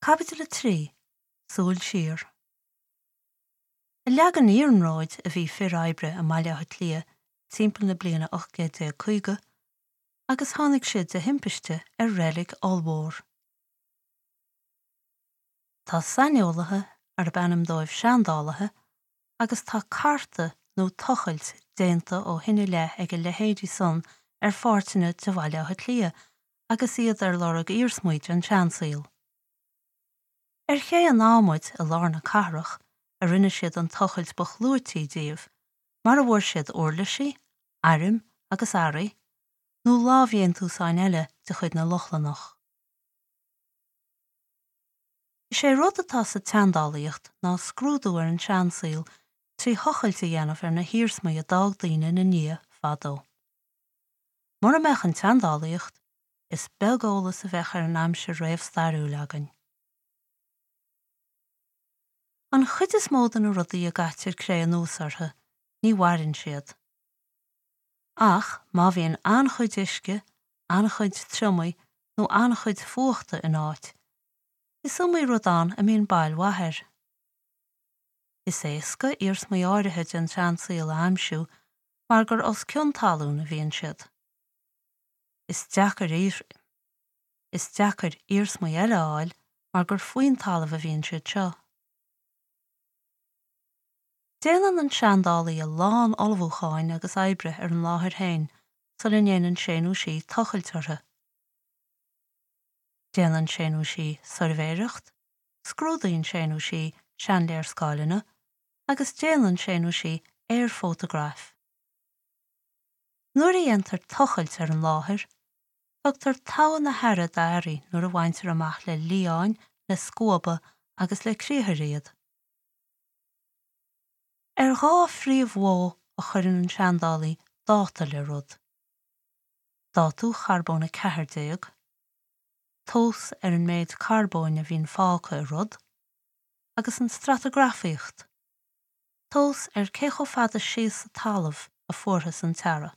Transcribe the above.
Caibidil 3, Súil Siar. Ag leagan iarnróid a bhí fir oibre i mBaile Átha Cliath timpeall na bliana 1850 agus tháinig siad de thimpiste ar reilig ollmhór. Tá saineolaithe arb ainm dóibh seandálaithe agus tá cartadh nó tochailt déanta ó shin i leith ag a leithéidí san ar pháirteanna de Bhaile Átha Cliath agus iad ar lorg iarsmaí den tseansaol. Ar Ché an Adhmaid i lár na cathrach a rinne siad an tochailt ba chlúití díobh, mar a bhfuair siad uirlisí, airm agus earraí, nó lámhdhéantúsáin eile de chuid na Lochlannach. Is é rud atá sa tseandálaíocht ná scrúdú ar an seansaol trí thochailt a dhéanamh ar na hiarsmaí a d'fhág daoine ina ndiaidh fadó. Mura mbeadh an tseandálaíocht, is beag eolas a bheadh ar an aimsir réamhstairiúil againn. An chuid is mó de na rudaí a gcaitear cré anuas orthu, ní mhaireann siad. Ach má bhíonn an-chuid uisce, an-chuid triomaigh nó an-chuid fuachta in áit, is iomaí rud ann a mbíonn bail mhaith air. Is éasca iarsmaí áirithe den tseansaol a aimsiú mar gur os cionn talún a bhíonn siad. Is deacair Is deacair iarsmaí eile a fháil mar gur faoin talamh a bhíonn siad seo. Déanann an seandálaí a lán ullmhúcháin agus oibre ar an láthair féin sula ndéanann sé nó sí tochailt orthu. Déanann sé nó sí suirbhéireacht, scrúdaíonn sé nó sí seanléarscáileanna agus déanann sé nó sí aerfótagraif. Nuair a dhéantar tochailt ar an láthair, tugtar togha na haire d'earraí nuair a bhaintear amach le liáin, le scuaba agus le criathair iad. Ar dhá phríomh-mhodh a chuireann an seandálaí dáta le rud, dátú charbón 14, tomhas ar an méid carbóin a bhíonn fágtha i rud, agus an stratagrafaíocht, tomhas ar cé chomh fada síos sa talamh a fuarthas an t-earra.